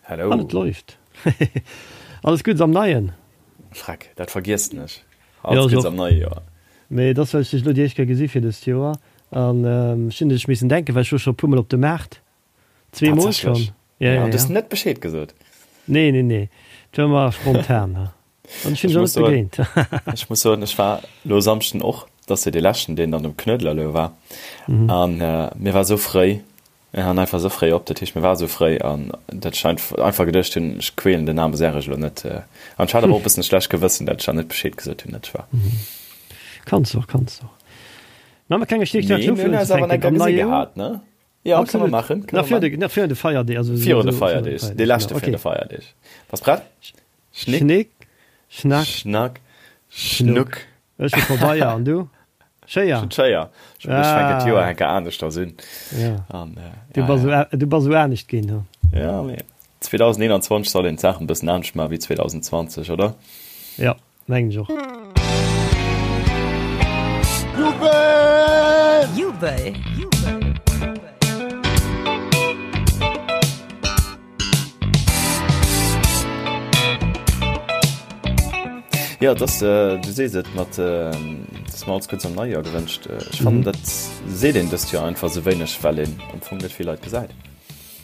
Hello. An et läuft. Alles Guddes am Neien. Freck, dat vergiessen ech. Alles Guddes am neie Joer. Mee et ass, well ech dech elo déi éischt Kéier gesi fir dëst Joer. An ech hunn un dech missen denken, well ech wor scho e puermol op de Maart. Zweemol schonn. Ja, ja, ja. Du hues net Bescheed gesot. Nee, nee, nee. Dat war mer spontan. An ech hunn dech och net begéint. Ech muss soen, ech war elo e Samschden och, dat ass jo dee leschten, deen dann um Knuedler elo war. An mir war esou fréi, Mir han einfach esou fréi op, dat heescht mir war esou fréi an dat ech einfach geduecht hunn, ech quälen den aarme Serge elo net. An ech hat awer och e bëssen e schlecht Gewëssen, dat ech dann net Bescheed gesot hunn, dat ech war. Kanns och, kanns och. Mä mer klenge Stéchwuert Mee mir hunn eis awer enker gesi gehat, ne? Jo, kënne mer maachen, kënne mer maachen. Nach virun de Feierdeeg, also. Virun de Feierdeeg, dee leschte virun de Feierdeeg. Bass prett? Schnick. Schnick, Schnack. Schnack, Schnuck. Ech hu Pabeier, an du? Schéier. Ech hunn d'Schéier. Ech fänken d'Joer enker aneschters un. Ja. An, äh, du bass ja, ja. Du bass esou anescht ginn, hu? Ja, mee 2021 soll een d'Saachen e bëssen anescht maachen wéi 2020, oder? Ja, mengen ech och. Jubel! Jubel! Jo, et ass, du sees et, mat dass mer alles Guddes am neie Joer gewënscht. Ech fannen, dat seet een dëst Joer einfach esou wéineg, well een am Fong net vill Leit gesäit.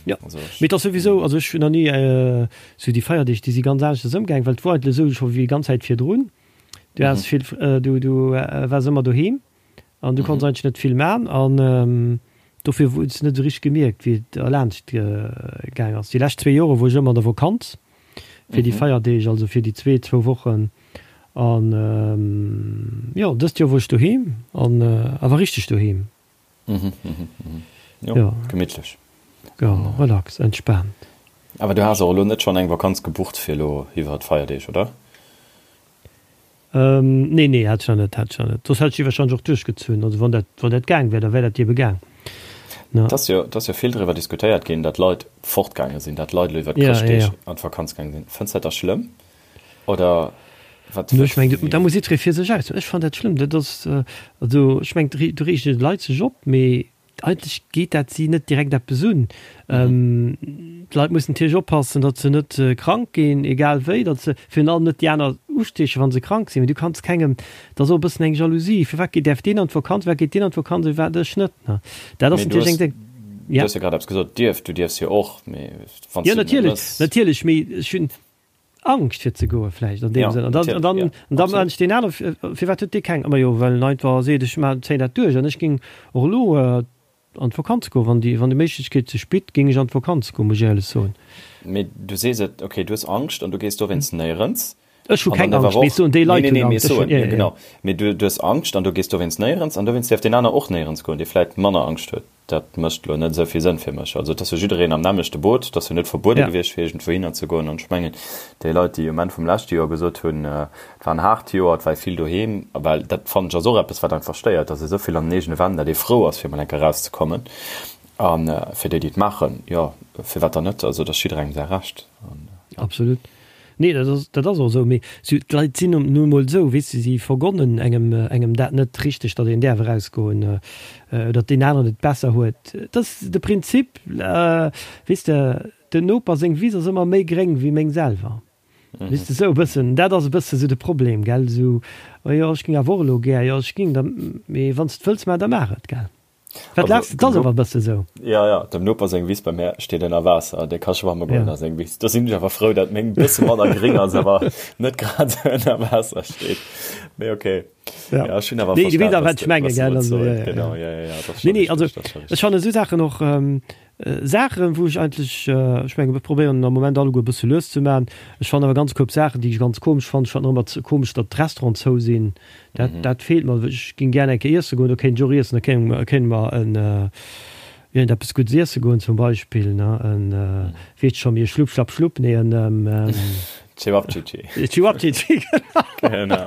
Jo, mee et ass souwisou, also ech hunn nach ni esou déi Feierdeeg, déi si ganz aneschters ëmgaang, well et wor eigentlech esou scho wéi ganz Zäit virdrun. Du has vill, du waars ëmmer doheem. An du konns eigentlech net vill man an dofir hues de net esou richteg gemierkt wéi et erlaanscht gaang ass. Déi lescht zwee Jore wor ech ëmmer an der Vokanz fir déi Feierdeeg, also fir déi zwee zwou Wochen an jo dëst Joer wor ech doheem an awer richteg doheem. Jo, gemittlech. Jo, relax, entspaant. Awer du has och elo net schonn eng Vakanz gebucht fir elo iwwer d'Feierdeeg, oder? Nee, nee, hat ech nach net, hat ech nach net. Soss hätt ech déi wahrscheinlech och duerchgezunn. Also wann dat, wann dat gaang wär, da wär dat ebe gaang. Ne? Et ass jo, et ass jo vill driwwer diskutéiert ginn, datt Leit fortgaange sinn, datt Leit elo iwwer d'Chrëschtdeeg an d'Vakanz gaange sinn. Fënns dat da schlëmm oder wat? No, ech mengen, da muss jiddweree fir sech aus. Ech fannen dat schlëmm. Dat ass, also ech mengen, do reegen d'Leit sech op, mee Eigentlech geet dat si net direkt eppes un. D'Leit mussen natierlech oppassen, datt se net krank ginn, egal wéi, datt se virun allem net déi aner ustiechen, wa se krank sinn. Mee du kanns kengem, dat ass och e bëssen eng Jalousie, firwat geet, däerf deen an d'Vakanz, firwat geet deen an d'Vakanz a firwat ech net, ne? Dat ass natierlech eng, ja. Du hues jo grad eppes gesot, dierf, du dierfs jo och, mee wann s du et net mëss. Jo, natierlech, natierlech, mee ech hunn, Angscht fir ze goe vläicht an deem Sënn. An dann, an dann, an dann mengt deen aner, firwat huet dee keng? Ma jo, well en einfach seet, ech maachen, zéien dat duerch an ech géing och elo an d'Vakanz goen, wann déi, wann déi Méiglechkeet sech bitt, géing ech an d'Vakanz goen, muss ech éierlech soen. Mee du sees et, okay, du hues Angscht an du gees dowéinst néierens. Ech hu keng Angscht, mee ech soen, déi Leit hunn Angscht. Nee, nee, nee, mee genau. Mee du hues Angscht an du gees dowéinst néierens an dowéinst däerf deen aner och néierens goen, dee vläicht manner Angscht huet. Dat mécht elo net esou vill Sënn fir mech. Also et ass jo jiddereen am nämmlechte Boot, et ass jo net verbuede gewiescht fir iergendwouhinner ze goen. An ech mengen, déi Leit, déi um Enn vum leschte Joer gesot hunn, et war en haart Joer, et war ee vill doheem, well dat fannen ech ass och eppes wat einfach stéiert, dass ee esou vill an den eegene Wänn, datt ee frou ass fir emol eng Kéier erauszekommen. A fir déi, déi et maachen, jo, firwat dann net? Also et ass jidderengem säi Recht. Absolut. Nee, dat ass, dat ass och esou. Mee si, d'Leit sinn nu emol esou, weess de, si vergonnen engem, engem dat net richteg, datt een däerf erausgoen, datt deen aneren et besser huet. Et ass de Prinzip, weess de, den Noper seng Wiss ass ëmmer méi gréng wéi meng selwer. Weess de, esou e bëssen, dat ass e bësse sou de Problem, gell, esou, oh jo, ech géing awer och elo gär, jo, ech géing da, mee wann s de et wëlls maachen, da maach et, gell. Wat laachs de? 't ass awer e bësse sou. Jo, jo, dem Noper seng Wiss bei mär steet ënner Waasser, dee ka schwamme goen a seng Wiss. Do sinn ech awer frou, dat meng e bësse manner gréng ass, awer net grad esou ënner Waasser steet. Mee ok. Jo, ech hunn awer verstan, wat s de wëlls soen. Genau, jo, jo, jo, dat ass scho richteg, dat ass scho richteg. Ech fannen esou Saachen och, Saachen, wou ech eigentlech, ech mengen, ech probéieren am Moment alleguer e bësse lues ze maachen. Ech fannen awer ganz koup Saachen, déi ech ganz komesch fannen. Ech fannen och ëmmer komesch, datt d'Restauranten zou sinn. Dat, dat feelt mer. Ech géing gär eng Kéier iesse goen, do kéint ech och iessen, da kéint, kéinte mer en, iergend eppes Guddes iesse goen zum Beispill, ne, en, weess scho, mir Schlupp, Schlapp, Schlupp, nee, en. Cevapcici. Cevapcici, genau. Genau.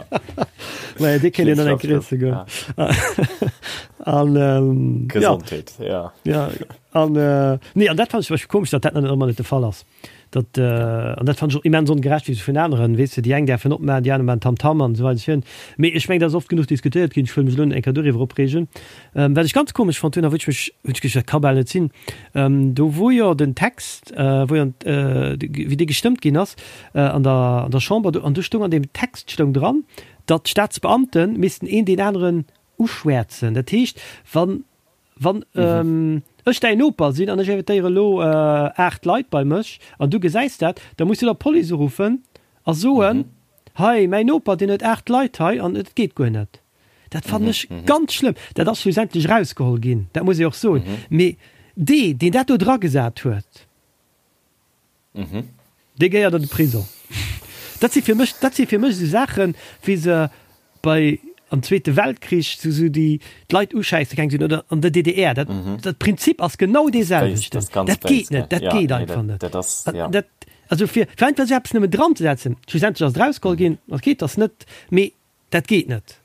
Maja, dee kéint een dann eng Kéier iesse goen. An ähm, Gesondheet, ja. Ja. ja. An äh, nee, an dat fand ich komesch, dat dat net ëmmer net de Fall ass. Dat, äh, an dat fand ich och immens ongerecht wéi se vun aneren, weess de, déi eng däerfen opmaachen, déi aner maachen Tamtam an esou weider esou virun. Mee ech meng, dat ass oft genuch diskutéiert ginn, ech wëll mech elo net eng Kéier doriwwer opreegen. Ähm, wat ech ganz komesch fonnt hunn a wou ech mech, hunn ech geduecht, dat ka bal net sinn, ähm, do wou jo den Text, äh, wou jo, äh, wéi dee gestëmmt ginn ass, äh, an der, an der Chamber, do, an do stoung an deem Text stoung dran, datt d'Staatsbeamte missten een deen aneren uschwäerzen. Dat heescht, wann, wann ech däin Noper sinn an ech invitéiere elo 8 Leit bei mech an du gesäis dat, da muss du der Police uruffen a soen, Hei, mäin Noper, deen huet 8 Leit hei an et geet guer net. Dat fannen ech ganz schlëmm. Dat ass schlussendlech erausgeholl ginn, dat muss ee och soen. Mee dee, deen dat do dragesat huet, Dee gehéiert an de Prisong. Dat si fir mech, dat si fir mech esou Saachen, wéi se bei am Zweete Weltkrich sou sou déi d'Leit uschäisse gaang sinn oder an der DDR. Dat, dat Prinzip ass genau dee selwechten. Dat geet net, dat geet einfach net. Dat, also fir, fir einfach esou eppes nëmmen dranzesetzen, schlussendlech ass et erausgeholl ginn, okay, et ass net, mee dat geet net.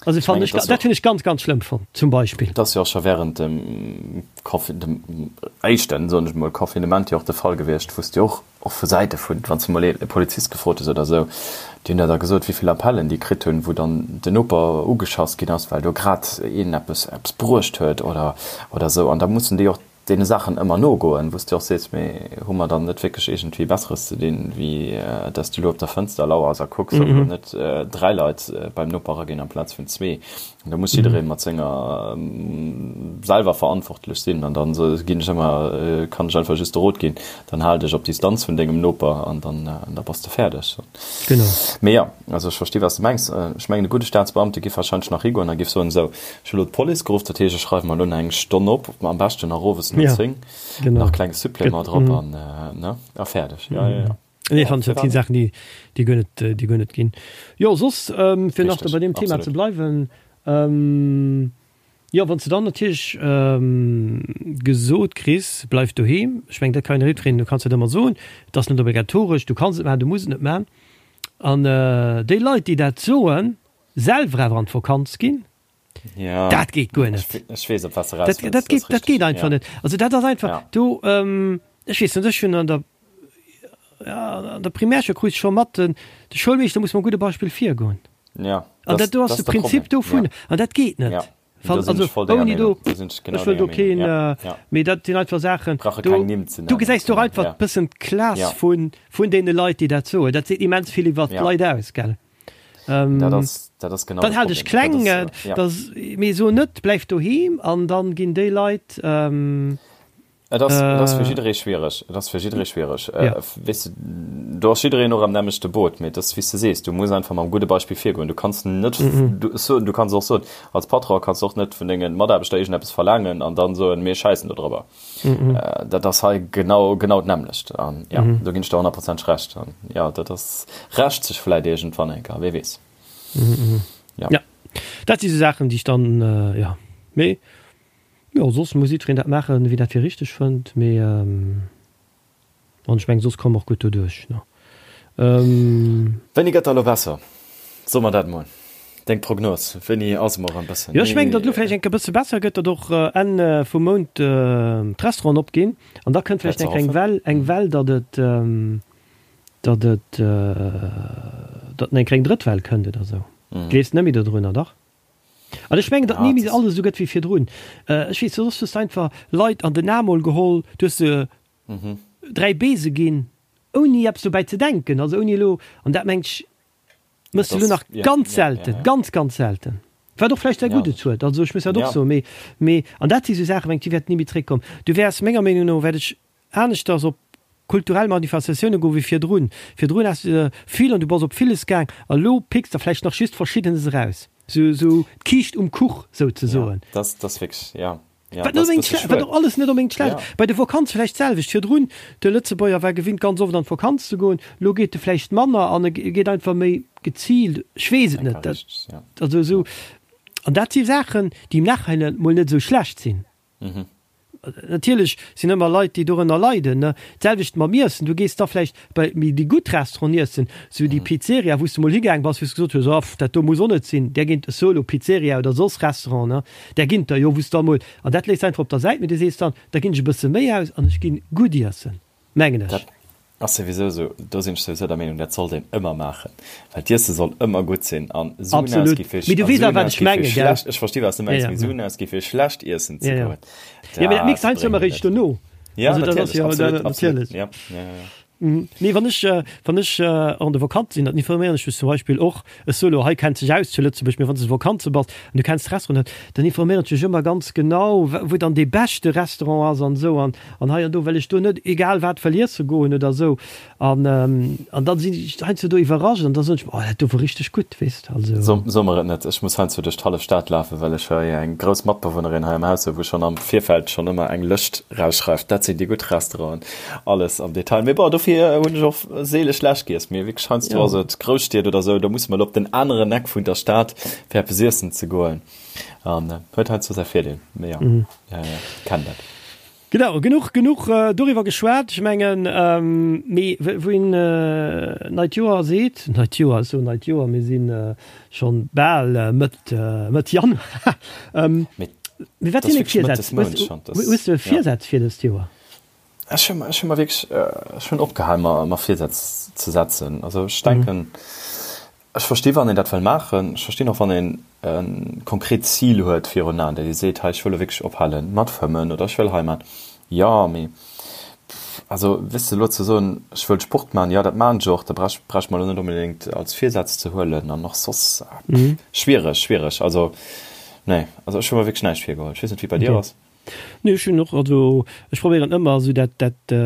Also fand ech, dat hunn ech ganz, ganz schlëmm fonnt, zum Beispill. Et ass jo och scho während dem Confi-, dem éischten, soen ech emol, Confinement jo och de Fall gewiescht, wou s de och, och vu Säite vun, wann s de mol ee Polizist gefrot hues oder esou, déi hunn der da gesot, wéi vill Appellen déi kritt hunn, wou dann den Noper ugeschass ginn ass, well do grad een eppes, eppes bruecht huet oder, oder esou. An da mussen déi och deene Saachen ëmmer nogoen, wou s de och sees, mee hu mer dann net wierklech iergendwéi Besseres ze dinn, wéi dass du elo op der Fënster lauers a kucks, ob elo net 3 Leit beim Noper eraginn amplaz vun zwee. An da muss jidderee mat senger selwer verantwortlech sinn. An dann ginn ech ëmmer, kann ech einfach just de Rot ginn, dann hal dech op Distanz vun dengem Noper an dann da bass de fäerdeg. Genau. Mee jo, also ech versti wat s de mengs. Ech mengen e gudde Staatsbeamte giff wahrscheinlech nach higoen a giff soen, esou, ech hu lo d'Police geruff, dat heescht ech schreiwe mer elo nach eng Stonn op, am beschten nach owes no 10, nach klenge Supplément drop an, ne, a fäerdeg. Jo, jo, jo. Nee, fannen ech, dat sinn Saachen, déi, déi guer net, déi guer net ginn. Jo, soss, fir nach bei deem Thema ze bleiwen, Jo, wann s de dann natierlech gesot kriss, bleif doheem, ech mengen, dat kann een eriwwkréien, du kanns dat ëmmer soen, et ass net obligatoresch, du kanns et maachen, du muss et net maachen. An déi Leit, déi dat soen, selwer awer an d'Vakanz ginn, dat geet guer net. Ech weess, op wat s de eraus wëlls. Dat geet, dat geet einfach net. Also dat ass einfach do, ech weess net, ech hunn an der, an der Primärschoul krut ech scho mat, de Schoulmeeschter muss mam gudde Beispill virgoen. Ja, an dat do ass de Prinzip dovun ja. An dat geet net. Ja. Fan, also, ouni do, ech wëll do keen, ja. Ja. Mee dat sinn einfach Saachen, do, du gesäis doch einfach ja. bëssen d'Klass ja. vun, vun deene Leit, déi dat soen. Dat seet immens vill iwwer ja. d'Leit aus, gell? Ähm, dat ass, dat ass genau dann halt ech kleng, dat ass, ja. das, mee so net, bleif doheem an dann ginn déi Leit, ähm, Et ass, et ass fir jidderee schwiereg. Et ass fir jidderee schwiereg. Ja. Weess de, do ass jiddereen och am nämmlechte Boot, mee et ass wéi s de sees, du muss einfach mam gudde Beispill virgoen. Du kanns net, du, so, du kanns och soen, als Patron kanns du och net vun denge Mataarbechter iergendeppes verlaangen an dann soen, mir schäissen do drëwer. Dat ass hei genau, genau d'nämmlecht. An ja, do ginn ech der honnertprozenteg Recht. An ja, dat ass, rächt sech vläit iergendwann eng Kéier, wie weess. Ja. Ja, dat si sou Saachen, déi ech dann, ja, mee Jo, soss muss jiddwereen dat maachen, wéi dat fir richteg fënnt, mee an ech mengen, soss komme mer och gutt doduerch, ne? Wéini gëtt da elo besser? So mer dat emol, deng Prognos, wéini ass emol erëm bëssen Jo, ech mengen, datt elo vläicht eng Kéier e bësse besser gëtt, datt och Enn vum Mount d'Restauranten opginn an da kënnt vläicht eng Kéier eng Well, eng Well, datt et, datt et, datt eng Kéier eng drëtt Well kënnt oder esou. Gleefs net méi dodrunner, dach? An ech mengen, datt ni méi alles esou gëtt wéi virdrun. Ech weess, soss hues de einfach Leit an den Aarm mol geholl, du hues se 3 Bese ginn, ouni eppes dobäi ze denken, also ouni elo, an dat mengt ech, méchs de elo nach ganz selten, ganz, ganz selten. Wat och vläicht säi Guddes huet, also ech muss dat och soen, mee, mee, an dat si sou Saachen, mengt, déi wäerten ni méi zréckkommen. Du wäers, menger Meenung no, wäert ech aneschters op kulturell Manifestatioune goe wéi virdrun. Virdrun has de vill an du bass op villes gaang a lo picks der vläicht nach just Verschiddenes eraus. Sou sou d'Kiischt um Kuch souzesoen. Ja, dat ass wierklech, ja. Ja, wat net onbedéngt schle-, wat och alles net onbedéngt schlecht ass. Bei de Vakanze vläicht d'selwecht. Virdrun, de Lëtzebuerger war gewinnt ganz oft an d'Vakanz ze goen, lo geet e vläicht manner an e geet einfach méi geziilt, ech weess et net. Dat, also esou, an dat si Saachen, déi im Nachhinein mol net esou schlecht sinn. Natierlech sinn ëmmer Leit, déi dorënner leiden, ne. D'selwecht mam Iessen, du gees da vläicht bei méi déi gutt Restauranten iessen, sou déi Pizzeria, wou s de mol higaang bass, wou s de gesot hues, oh, dat do muss och net sinn, där ginn, solo Pizzeria oder soss Restaurant, ne, där ginn der jo, wou s da mol, an dat léiss einfach op der Säit, mee du sees dann, da ginn ech e bësse méi aus an ech ginn gutt iessen, mengen ech. Dat ass souwisou esou, do sinn ech souwisou der Meenung, dat sollt een ëmmer maachen, well d'Iesse soll ëmmer gutt sinn an Suen Absolut, ausgi fir mee du a weess Suen awer wat ech ausgi fir menge, gell? schlecht, ech versti wat s de Ja, mengs, ja, mee ja. Suen ausgi fir schlecht iessen ze Ja, ja. goen, Ja, mee dat mierks dat de heiansdo bréngt ëmmer net. eréischt dono. Ja, Also dat ass natierlech, jo absolut, absolut, natierlech. ja, ja, ja, ja. Nee, wann ech, wann ech an de Vakanze sinn, dann informéieren ech mech zum Beispill och, ech soe lo, hei kennt sech aus zu Lëtzebuerg, mee wann s de Vakanze bass an du kenns d'Restauranten net, dann informéieren ech mech ëmmer ganz genau, wou dann dee beschte Restaurant ass an esou an an hei an do, well ech do net egal wat wëll iesse goen oder esou. An, an dann sinn ech heiansdo do iwwerrascht an da soen ech mer, oh dat do wor richteg gutt, weess de, also. So, so mer et net, ech muss heiansdo duerch d'hallef Stad lafen, well ech hei eng grouss Matbewunnerin hei am Haus hu wou schonn am Virfeld schonn ëmmer eng Lëscht rausschreift, dat sinn déi gutt Restauranten, alles am Detail. Mee bon, dofir hunn ech och seele schlecht giess. Mee wierklech heiansdo Ja. ass et Grousstied oder esou, do muss mer op den aneren Eck vun der Stad fir eppes iessen ze goen an huet heiansdo säi Virdeel. Mee jo, kennen dat. Genau, genuch, genuch doriwwer geschwat. Ech mengen, mee wou een neit Joer seet, neit Joer, ech soen neit Joer, mir si schonn bal Mëtt, Mëtt Januar. Mee wat sinn deng Virsätz? Hues de Virsätz fir dëst Joer? Ech hu, ech hu mer wierklech, ech hunn opgehal mer, mer Virsätz ze setzen. Also ech denken, Ech versti wann een dat wëll maachen. Ech verstinn och wann een e konkret Zil huet virun Aen, dat ee seet, hei ech wëll elo wierklech ophale mat fëmmen oder ech wëll hei maachen. Jo, mee also weess de elo ze soen, ech wëll Sport maachen, jo dat maachen ech och, da brauch brauch ech mer elo net onbedéngt als Virsaz ze huelen an och soss, schwiereg, schwiereg. Also nee, also ech hu mer wierklech näischt virgeholl. Ech weess net wéi et bei dir ass. Nee, ech hunn och, also ech probéieren ëmmer esou dat dat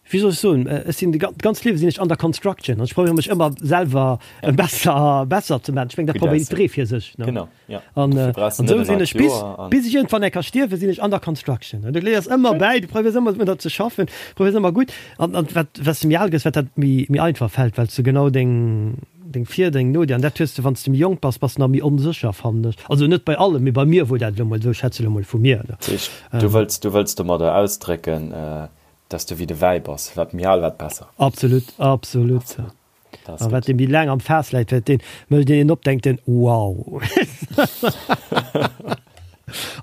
wéi soll ech soen, ech sinn d'ganz Liewe sinn ech under construction an ech probéiere mech ëmmer selwer besser besser ze maachen. Ech mengen dat probéiert jidderee fir sech, ne? Genau, ja. An an esou sinn ech bis bis ech iergendwann eng Kéier stierwen, sinn ech under construction. An du léiers ëmmer bäi, du probéiers ëmmer drun ze schaffen, probéiers ëmmer gutt an an wat wat s de méi al gëss, wat dat méi méi einfach fält, well s de genau deng deng Vir-, deng No-, an dat hues de wann s de méi jonk bass, bass de nach méi onsécher fannen ech. Also net bei allem, mee bei mir wor dat elo mol esou, ech schwätze elo mol vu mir, ne? Dat heescht, du wëlls du wëlls domadder ausdrécken, Dass du wéi de Wäi bass, wat méi al, wat besser. Absolut, absolut. A wat dee méi laang am Faass läit, wat deen mécht een op, denkt en, wow.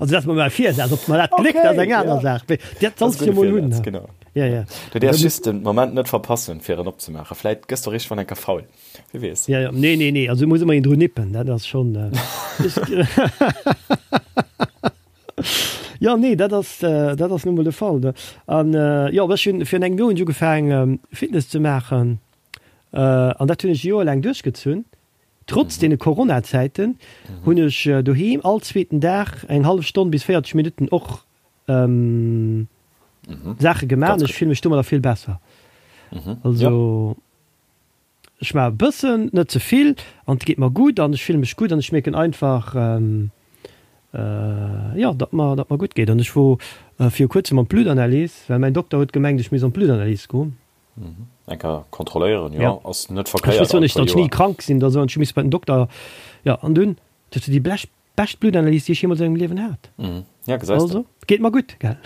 Also dat ass mol mäi Virsaz, ob mer dat gléckt, ass eng aner Saach, mee dat solls de jo mol hunn. Genau. Ja, ja. Du däerfs just den Moment net verpassen, fir en opzemaachen. Vläit gëss de richteg wann enker faul, wie weess. Ja, ja, nee, nee, nee, also muss ëmmer een dru nippen, dat ass schonn. Jo, nee, dat ass, dat ass nu mol de Fall, ne. An jo, ech hunn virun engem Joer hunn ech ugefaangen, Fitness ze maachen. An dat hunn ech e Joer laang duerchgezunn. Trotz deene Corona-Zäiten hunn ech doheem all zweeten Dag eng hallef Stonn bis 40 Minutten och Saache gemaach an ech fille mech domadder vill besser. Also. Ech maache e bëssen, net ze vill, an et geet mer gutt an ech fille mech gutt an ech mierken einfach, jo, datt mer, datt mer gutt geet. An ech wor viru kuerzem an d'Bluttanalys, well mäin Dokter huet gemengt, ech misst an d'Bluttanalys goen. Eng Kéier kontrolléieren, jo, ass net verkéiert all puer Joer. Ech wëss jo net, datt ech ni krank sinn oder esou an ech hu misse bei den Dokter, jo, an dunn huet se déi Blech Bescht Blutanalyse déi ech jeemools a mengem Liewen hat. Ja, gesäis de. Also, geet mer gutt, gell?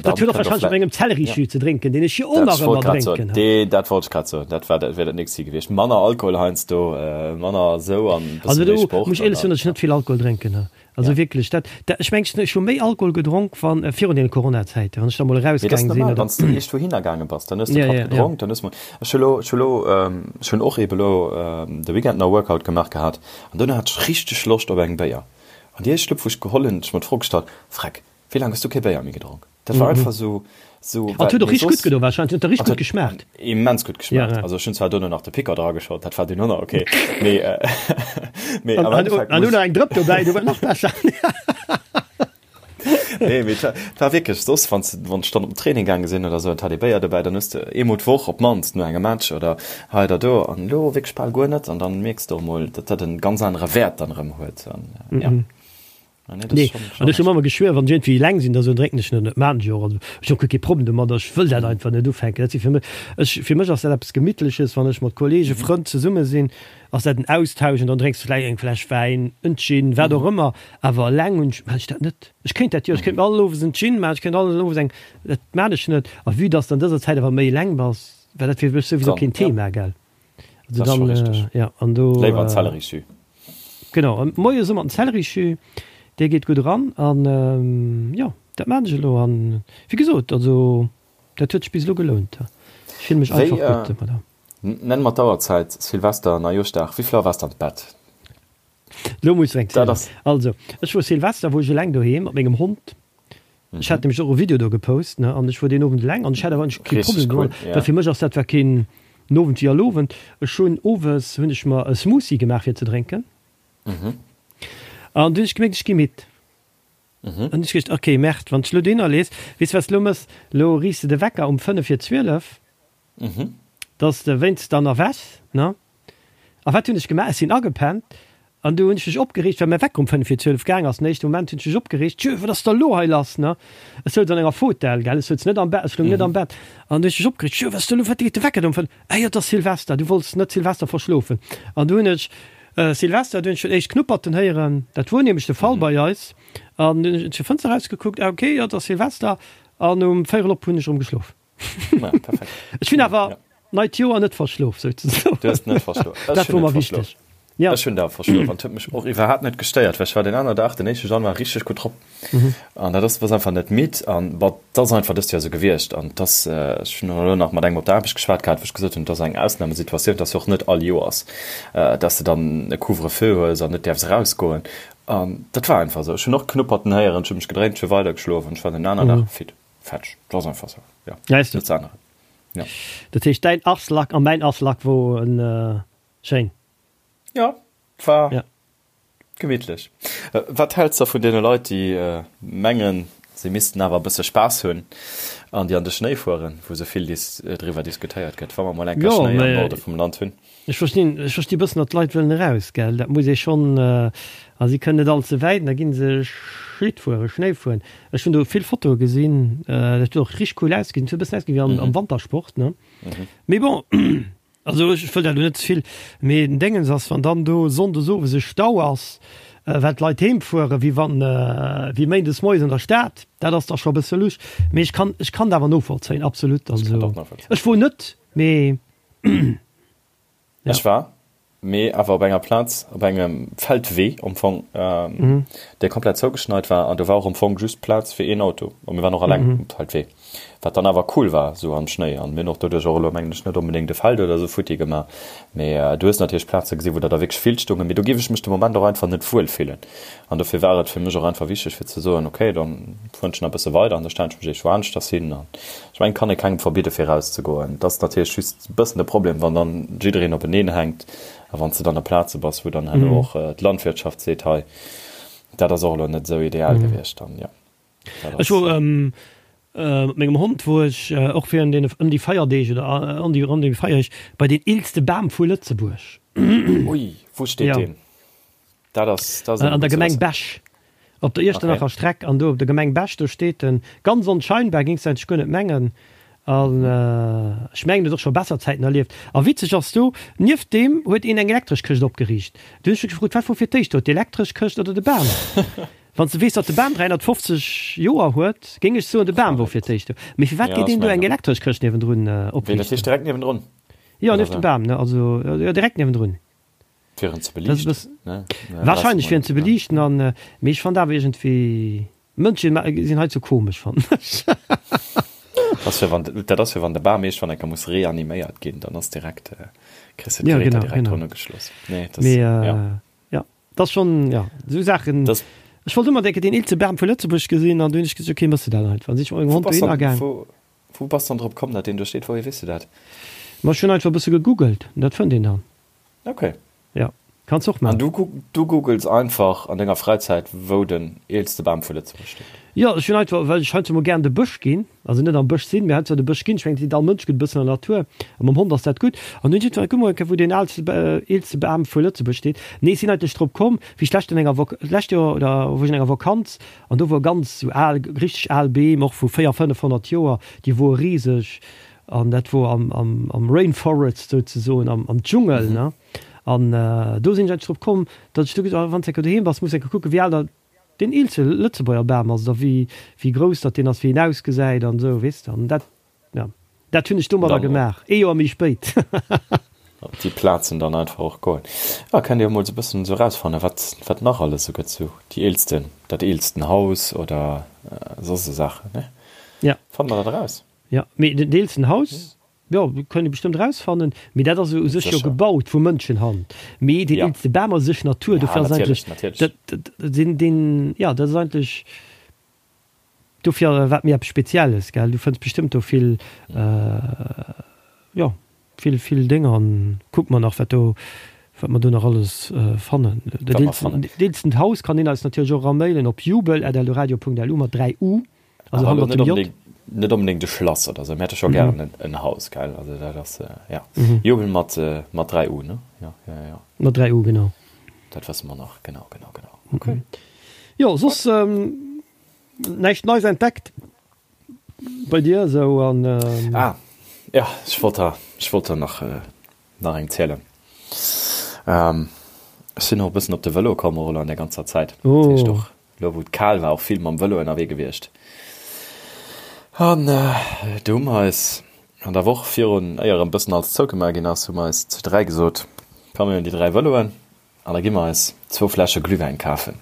Dat huet och wahrscheinlech mat mengem Zellerijus ze drénken, deen ech jo och nach ëmmer drénken. Dat wollt ech grad soen, dat war dat wär dat nächst gewiescht. Manner Alkohol heiansdo, manner esou an e bësse Also méi do Sport. muss ech éierlech soen, datt ech net vill Alkohol drénken. Also wierklech, dat, dat, ech mengen, ech hu méi Alkohol gedronk wann, virun deene Coronazäiten, wann ech da mol Mee dat ass erausgaang sinn normal, oder. wann s de eescht wouhinner gaange bass, dann hues de Patt gedronk, dann hues de mol, ech hu lo, ech hu lo, ech hunn och eebe lo de Weekend nach Workout gemaach gehat an duerno hat ech richteg Loscht op eng Béier. An déi éischt Schlupp wou ech geholl hunn, hunn ech mer d'Fro gestallt, Freck, wéi laang hues du kee Béier méi gedronk? Dat war einfach sou, sou, An well et huet och mee richteg gutt soss, gedo wahrscheinlech, et huet der an richteg et gutt geschmaacht. huet immens gutt Ja, geschmaacht. ja. Also ech hunn zwar duerno nach de Picker drageschott, dat war dunn och nach ok, mee, mee An, am an, Endeffekt an muss. elo nach eng Drëpp dobäi, du war nach besser. Nee, mee et war wierklech soss, wann s, wann ech dann op den Training gaange sinn oder sou, an et hat ee Béier dobäi, dann hues de eemol d'Woch op d'mannst no engem Match oder hei oder do, an elo wierklech bal guer net. An dann mierks de och emol, datt dat en ganz anere Wäert dann erëm huet. An ja. Ah, nee, nee. An ech hu mer geschwuer, wann ech iergendwéi eleng sinn, da sou drénken ech net. Dat maachen ech och. Also ech hunn och guer kee Problem domadder. Ech wëll dat einfach net ufänken. Dat si fir mech, ech, fir mech ass dat eppes Gemittleches, wann ech mat Kollegen, Frënn zesumme sinn, ass dat en Austausch an dann drénks de vläicht eng Fläsch Wäin, en Gin, wat och ëmmer. Awer eleng hunn ech, maachen ech dat net. Ech kéint dat jo, ech kéint mir all Owes en Gin maachen, ech kéint all Owes eng, dat maan ech net. A vue dass de an dëser Zäit awer méi eleng bass, war dat fir mech souwisou keen Thema, gell. Also dann, äh, ja, an do. Léiwer en Zellerisjus. Genau, an moies ëmmer den Zellerisjus, dee geet gutt eran. An ähm, jo, dat maan ech elo. An wéi gesot, also dat huet sech bis elo gelount. Ech fille mech einfach gutt domadder. Nenn mer d'Auerzäit, Silvester, Neijooschdag, wéi vill Auer waars de an d'Bett? Lo muss ech eng zielen. Also, ech wor Silvester wor ech eleng doheem mat mengem Hond. Ech hat nämlech och e Video do gepost, ne, an ech wor deen Owend eleng an ech hat awer eigentlech kee Problem domat, well fir mech ass dat war keen Owend wéi all Owend. Ech hunn owes hunn ech mer e Smoothie gemaach fir ze drénken an du hunn ech gemierkt, ech gi midd. An ech geduecht, ok, Merde, wann s de lo dohinner lees, weess de wat s de lo mëss, lo riichs de de Wecker um 5 vir 12, Dass de wéinst dann erwächs, ne? A wat hunn ech gemaach? Ech sinn agepennt an du hunn ech mech opgereegt, well mäi Wecker um 5 vir 12 gaang ass. Den éischte Moment hunn ech mech opgereegt, Tjö, wat ass da lo hei lass, ne? Ech souz an enger Fotell, gell, ech souz net am Bett, ech loung net am Bett. An du hunn ech mech opgereegt, Tjö, wat ass da lo, wat geet de Wecker do um 5? Ah jo, et ass Silvester, du wollts net Silvester verschlofen. An du hunn ech Silvester, du hunn ech schon éischt Knupperten héieren, dat wor nämlech de Fall bei eis. An dunn hunn ech zur Fënster erausgekuckt, ah okay, jo, et ass Silvester. An um véierel op hunn ech erëm geschlof. Ja, perfekt. Ech hunn awer ja. neit Joer net verschlof souzesoen. Du hast net verschlof. Dat wor mer wichteg. Ja. Ech hunn da verschlof an huet mech och iwwerhaapt net gestéiert, well ech war den aner Dag, den éischte Januar richteg gutt drop. Mhm. An dat ass was einfach net midd an bon, dat ass einfach dëst Joer sou gewiescht an dass ech hunn elo nach mat engem op der Aarbecht geschwat gehat, wou ech gesot hunn, dat ass eng Ausnamesituatioun, dass jo och net all Joers, dass de dann e Couvre-feu hues an net däerfs erausgoen. An dat war einfach sou. Ech hunn och Knupperten héieren, ech hu mech gedréint, ech hu weidergeschlof an ech war den aner Dag fit. Fetsch, dat ass einfach sou, jo, Weißt du? net ze änneren, jo. Dat heescht däin Aslak a mäin Aslak wor en schéin. Jo, war Ja. gemittlech. Wat häls de vun deene Leit, déi mengen, se missten awer e bësse Spaass hunn an déi an de Schnéi fueren, wou sou vill driwwer diskutéiert gëtt, wa mer mol eng Kéier Jo, Schnéi am mä Norde vum Land hunn? Ech verstinn, ech versti bëssen, datt d'Leit wëllen eraus, gell, dat muss ee schonn, a si kënnen net all ze wäit, an da gi se Schlitt fueren, Schnéi fueren. Ech hunn do vill Fotoe gesinn, dat huet och richteg cool ausgesinn, et huet e bëssen ausgesinn wéi am, am Wantersport, ne. Mee bon, also ech wëll dat elo net ze vill, mee den Déngens ass, wann dann do sonndes owes e Stau ass, well d'Leit heem fueren, wéi wann, wéi méindes moies an der Stad, dat ass da scho e bësse lusch. Mee ech kann, ech kann dat awer novollzéien, absolut. Also ech wor net, mee. Ja. Ech war, mee awer op enger Plaz, op engem Feldwee am Fong, ähm, mhm. dee komplett zougeschneit war an do war och am Fong just Plaz fir een Auto. A mir waren och alleng mhm. um Feldwee. Wat dann awer cool war, sou am Schnéi. An mir hunn och doduerch och elo mengen ech net onbedéngt e Feld oder sou futti gemaach. Mee äh, du hues natierlech Plaze gesinn, wou der da wierklech vill stoungen. Mee do géif ech mech de Moment och einfach net wuel fillen. An dofir war et fir mech och einfach wichteg fir ze soen, okay, dann fueren ech nach e bësse weider an da stellen ech mech iergendwou aneschters hin. An ech mengen, et kann ee kengem verbidde fir erauszegoen. Et ass natierlech just e bëssen de Problem, wann dann jiddereen openeen hänkt a wann s de dann op Plaze bass, wou dann herno och d'Landwirtschaft seet, hei, dat ass och elo net esou ideal gewiescht, dann jo. Dat ass. Ech wor mat mengem Hond wor ech och virun deene ëm déi Feierdeeg oder ëm déi ronderëm déi Feierdeeg bei deen eelste Bam vu Lëtzebuerg. Ui, wou steet deen? Dat ass, dat ass An der Gemeng Bech, op der Iechternacher okay. Streck an do op der Gemeng Bech, do steet en. Ganz onscheinbar, géings de eigentlech guer net mengen. An ech mengen, en huet och scho besser Zäiten erlieft. A witzeg ass do, nieft deem huet een eng elektresch Këscht opgeriicht. Du hunn ech mech gefrot, wat wor fir d'éischt do, d'elektresch Këscht oder de Bam? Wann s de weess, datt de Bam 350 Joer huet, géing ech soen, de Bam wor fir d'éischt do. Mee firwat geet een do eng elektresch Këscht niewendrun opriichten? Wéi, dat heescht direkt niewendrun? Jo, nieft dem Bam, ne, also jo, direkt niewendrun. Fir en ze beliichten, ne? Wahrscheinlech fir en ze beliichten an, mee ech fand awer iergendwéi, Mënschen sinn hei ze komesch fannen ech. Dat ass fir wann, dat ass fir wann de Bam iergendwann eng Kéier muss reaniméiert ginn, dann ass direkt, kriss de d'Geräter direkt drun ugeschloss. Nee, dat ass, jo. Ja, dat ass schonn, jo, esou Saachen. Ech wollt ëmmer denken, deen eelste Bam vu Lëtzebuerg gesinn an du hunn ech gesot, okay, méchs de dat einfach. An sinn ech mat mengem Hond dohinner gaang. Wou bass dann drop komm, datt deen do steet? Wouhier weess de dat? Ma ech hunn einfach e bësse gegoogelt, dat fënnt een dann. Okay. Ja. Kanns och man. An du, du googles einfach an denger Fräizäit wou den eelste Bam vu Lëtzebuerg steet? Jo, ech hunn einfach, well ech heiansdo mol gären de Bësch ginn, also net am Bësch sinn, mee heiansdo de Bësch ginn. Ech mengen, et seet all Mënsch gutt e bëssen an der Natur a mam Hond ass dat gutt. An dunn hunn ech einfach, kuck mol eng Kéier wou deen aalste, eelste Bam vu Lëtzebuerg steet. Nee, ech sinn eigentlech drop komm, wéi ech d'lescht an enger Vok, d'lescht Joer oder wou ech an enger Vakanz an do wor ganz sou al, richteg al Beem, och vu 4, 500 Joer, déi wore riseg an dat wor am, am, am Rainforest souzesoen, am, am Dschungel, ne. An do sinn ech eigentlech drop komm, datt ech du gesot hunn, wann s de enke doheem bass, muss de enke kucken, wéi al dat deen eelste Lëtzebuerger Bam ass oder wéi, wéi grouss datt deen ass, wéi en ausgesäit an esou, weess de. An dat, jo, dat hunn ech domadder gemaach, ee Joer méi spéit. Op déi Plazen dann einfach och goen. Jo, kennt Dir emol esou e bëssen esou erausfannen, wat, wat nach alles esou gëtt, esou déi eelsten, dat eelsten Haus oder soss esou Saachen, ne? Ja. Fanne mer dat eraus? Jo, mee den eelsten Haus, Jo, kënnt ee bestëmmt erausfannen, mee dat ass u sech jo gebaut vu Mënschenhand. Mee deen eelste Bam ass u sech Natur, dofir ass eigentlech dat deen, deen, jo, dat ass eigentlech dofir wat méi eppes Spezielles, gell. Du fënns bestëmmt do vill, jo, vill, vill Dénger an kucke mer nach, wat do, wat mer do nach alles fannen. Dat eelsten Haus kann een eis natierlech och eramailen op jubel at eldoradio.lu mat 3 u. Also hannert dem J. Net onbedéngt e Schlass oder sou, mir hätte scho gären mm. en Haus, gell? Also dat ass, äh, ja. Mm -hmm. Jubel mat, äh, mat 3 U, ne? Ja, ja, ja. Mat 3 U, genau. Dat wësse mer nach, genau, genau, genau. Okay. Mhm. Jo, soss ähm, näischt Neis entdeckt bei dir sou an. Ähm... Ah, ja, ech wollt der, ech wollt der nach, äh, nach eng zielen. Ähm, ech sinn och e bëssen op de Vëlo komm, och elo an der ganzer Zäit. Oh. Dat heescht och Lo wou et kal war, och vill mam Vëlo ënnerwee gewiescht. An do hu mer eis an der Woch virun, éier erëm bëssen alles zougemaach ginn ass, hu mer eis zu 3 gesot, komm mir hunn déi 3 Vëloen an da gi mer eis zwou Fläsche Glühwäin kafen.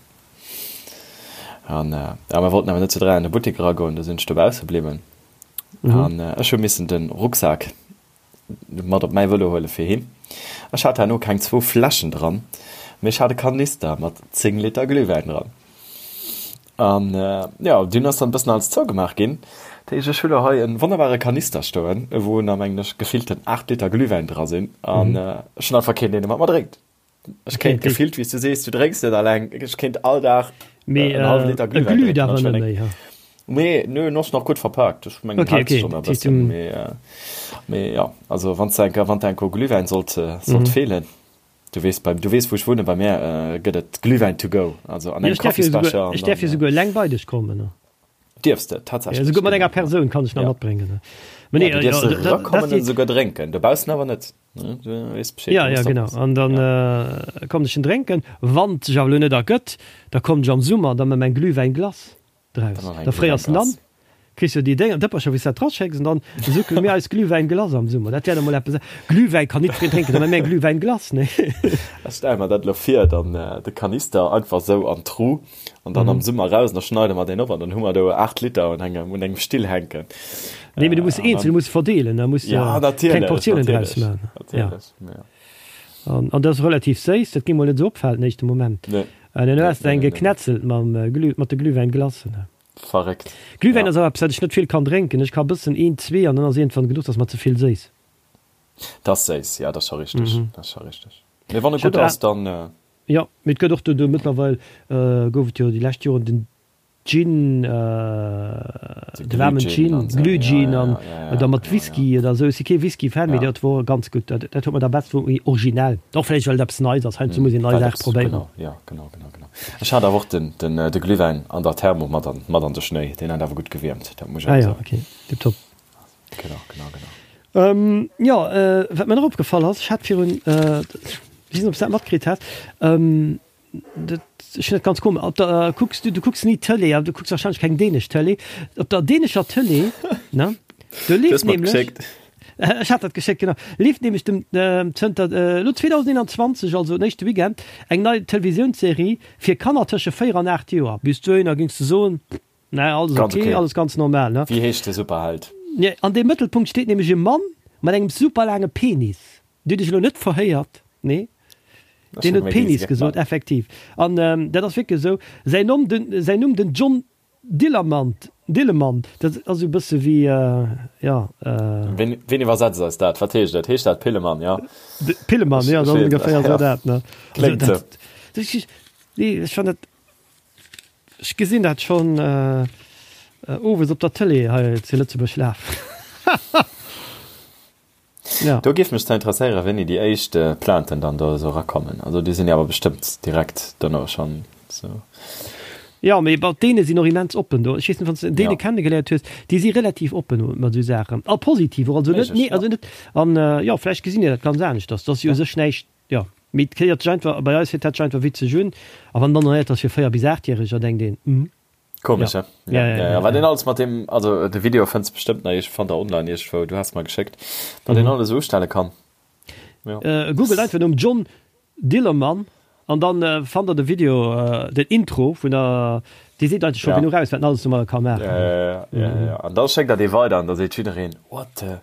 An ja, mer wollten awer net zu 3 an de Buttek eragoen, do sinn ech dobausse bliwwen. An ech hu missen de Rucksak mat op mäi Vëlo huele fir heem. Ech hat herno keng zwou Fläschen dran, mee ech hat e Kanister mat 10 Liter Glühwäin dran. An jo, dunn ass dann e bëssen alles zougemaach ginn. Dat heescht, ech hu lo hei e wonnerbare Kanister stoen, wou nach mengen ech gefillten 8 Liter Glühwäin dra sinn. An ech hunn einfach keen, deen e mat mer drénkt. Ech kéint gefillt, wéi s du sees, du drénks net alleng, ech kéint all Dag Mee en hallwe Liter Glühwäin drénken. Glüht awer net méi, ha? Nee, nö, en ass nach gutt verpaakt. Ech mengen, okay, hält sech schon e bëssen. Mee, mee ja, also wann s de enker, wann der enker u Glühwäin sollt, sollt feelen, du weess, bei, du weess wou ech wunnen, bei mär gëtt et Glühwäin to go, also an engem Kaffisbecher. Ech däerf jo souguer eleng bei dech kommen, ne? Dierfs de, tatsächlech. Esouguer mat enger Persoun kann ech nach matbréngen. Mee nee, du dierfs erakommen an esouguer drénken, dobaussen awer net. Ja, ja, genau. An dann äh, kommen ech en drénken. Wann et sech awer elo net ergëtt, da kommen ech am Summer da mat meng Glühwäinglace draus. Da fréiers en an, kriss jo déi Dénger, Dëppercher, wou s dat draschécks, an dann suckele mir eis Glühwäinglace am Summer. Dat wär da mol eppes. Glühwäin kann nit fir drénken, da mat mär Glühwäinglace, nee. Ech stelle mer dat elo vir, dann de Kanister einfach esou an d'Tru an dann am Summer raus, an da schneide mer deen op an dann hu mer do 8 Liter un engem, un engem Still hänken. Nee, mee du muss eenzel, du muss verdeelen, da muss ja, kleng Portiounen draus maachen. Natierlech, ja. An, an dat ass relativ séiss, dat géing mol net esou opfalen den éischte Moment. Nee. An dann hues de eng geknetzelt mam Glüh, mat de Glühwäinglacen. Verréckt. Glühwäin ass awer eppes, wat ech net vill kann drénken. Ech ka bëssen, een, zwee an dann ass iergendwann genuch, dat ass mer ze vill séiss. Dat ass séiss, ja, dat ass scho richteg, dat ass scho richteg. Mee wann e gutt ass, dann. Jo, mee et gëtt och do, do mëttlerweil gouf et jo déi lescht Joren den Gin, de waarmen Gin, Glühgin an oder mat Whisky oder esou. Ech si kee Whisky-Fan, mee dat wor ganz gutt. Dat dat huet mer da best wor méi originell. Och vläicht well et eppes Neits ass. Heiansdo muss een nei Saach probéieren. Genau, jo, genau, genau, genau. Ech hat awer och den den de Glühwäin an der Thermo mat an mat an de Schnéi. Deen hat awer gutt gewiermt, dat muss ech awer soen. Ah jo, okay, tiptop. Genau, genau, genau. Ähm, jo, äh, wat mir nach opgefall ass, ech hat virun, äh, ech weess net, ob s du dat matkritt has, ähm, dat, ech hunn dat ganz komesch, op der, kucks du, du kucks ni Tëlee, awer du kucks wahrscheinlech keng dänesch Tëlee, op der dänescher Tëlee, ne, do Du leeft hues mer nämlech, geschéckt. ech hat dat geschéckt, genau, leeft nämlech dem, ähm, zënter, äh, elo 2021, also den éischte Weekend, eng nei Televisiounsserie fir Kanner tësche 4 an 8 Joer. Bis dohinner géings du soen, Nee, alles Ganz okay, okay. alles ganz normal, ne? Wéi heescht de Superheld? Nee, an dem Mëttelpunkt steet nämlech e Mann mat engem super laange Penis. Dir hutt iech elo net verhéiert, nee? Ech Deen hunn huet méi Penis Riese gesot, gemaach. effektiv. An ähm, dat ass wierklech esou. Säin Nomm, den, säin Numm, den John Dillermand. Dillemann, dat ass esou e bësse wéi, jo. Ween, ween iwwersetzt eis dat? Wat heescht dat? Heescht dat Pillemann, jo? Pillemann, jo, dat ass ongeféier esou dat, ne? Kléngt esou. Nee, ech fannen dat, ech gesinn dat schonn owes op der Tëlee hei zu Lëtzebuerg lafen. Ja. Do géif mech zwar interesséieren, wéini déi éischt Plainten dann do esou erakommen. Also déi sinn jo awer bestëmmt direkt dono schonn esou. Jo, mee bon, d'Däne sinn och immens oppen do. Ech weess net, wann s de en Däne kennegeléiert hues, déi si relativ oppen mat esou Saachen. A positiv och, also net, nee, also net, an jo, vläicht gesinn déi dat ganz aneschters. Dat ass jo u sech näischt, jo, mee et héiert sech einfach, bei eis héiert dat sech einfach witzeg un. A wann dann nach héiert, dass fir 4 bis 8-Järeger, denkt een, hm. Komesch, ja. Ja, ja, ja, ja. Wat een alles mat dem, also de Video fënns bestëmmt nach, ech fand der online iergendwou, du has mer geschéckt, wat een mhm. alles ustelle kann. Ja. Äh, Google einfach nom John Dillermann an dann äh, fand der de Video, äh, den Intro vun der, Dir seet eigentlich schon ja. genug aus, wat alles normal kann machen. Ja, ja, ja, ja, ja. An da schéckt der dee weider an da seet jiddereen, what the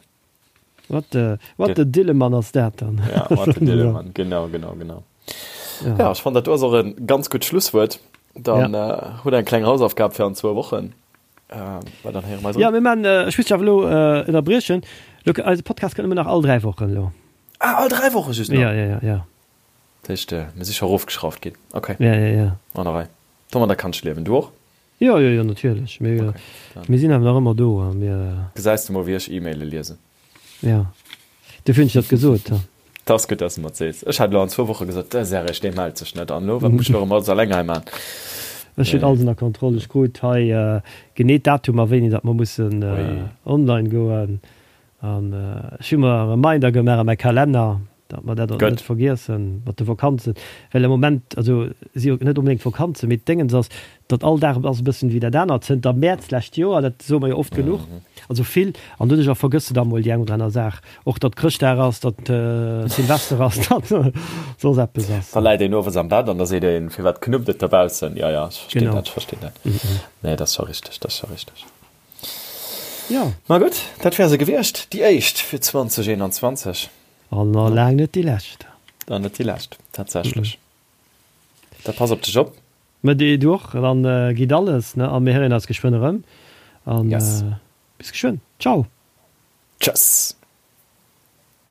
What the, what the Dillemann ass dat dann? Ja, what the Dillemann, genau, genau, genau. Ja, ja ech fand dat do ass och en ganz gutt Schlusswuert. Dann ja. äh, hutt eng kleng Hausaufgab fir an zwou Wochen. Äh, well dann héiere mer eis Ja, mir man, äh, ech muss dech awer elo äh, ënnerbriechen. Lo, eise Podcast kënnt nëmmen nach all 3 Wochen elo. Ah, all 3 Woche just nach? Ja, ja, ja, ja. Dat heescht, äh, mir si scho erofgeschrauft ginn. Okay. Ja, ja, ja. An der Rei. Domadder kann ech liewen. Du och? Jo, jo, jo, natierlech. Mir, okay, mir sinn awer nach ëmmer do a mir. Gesäis de mol, wéi ech E-Maile liesen. Jo, dofir hunn ech dat gesot. Dat ass gutt, dass de mer et sees. Ech hat elo an zwou Woche gesot, de Serge, dee mellt sech net. An elo, wat muss ech elo erëm alles eleng hei man? Ech hunn alles ënner Kontroll. Ech krut hei genee d'Datumer, wéini datt mer mussen online goen. An ech hu mer e Reminder gemaach a mäi Kalenner, datt mer dat och net vergiessen mat de Vakanzen. Well am Moment, also si jo net onbedéngt Vakanzen, mee d'Déngens ass, datt all Dag ass e bëssen wéi dat anert zënter Mäerz d'lescht Joer, dat soe mer jo oft genuch, also vill. An doduercher vergëss de da mol déi eng oder aner Saach. Och datt Chrëschtdag ass, datt Silvester ass, datt soss eppes ass. Da läit een owes am Bett an da seet een, Firwat knuppt et dobaussen? Jo, jo, ech verstinn dat, ech verstinn dat. Nee, dat ass scho richteg, dat ass scho richteg. Jo. Ma gutt, dat wär se gewiescht, déi éischt fir 2021. An nach laang net déi lescht. An net déi lescht, tatsächlech. Da pass op dech op. Ma du och. Dann geet alles, ne? A mir héieren eis geschwënn erëm. An bis geschwënn. Ciao. Tschëss.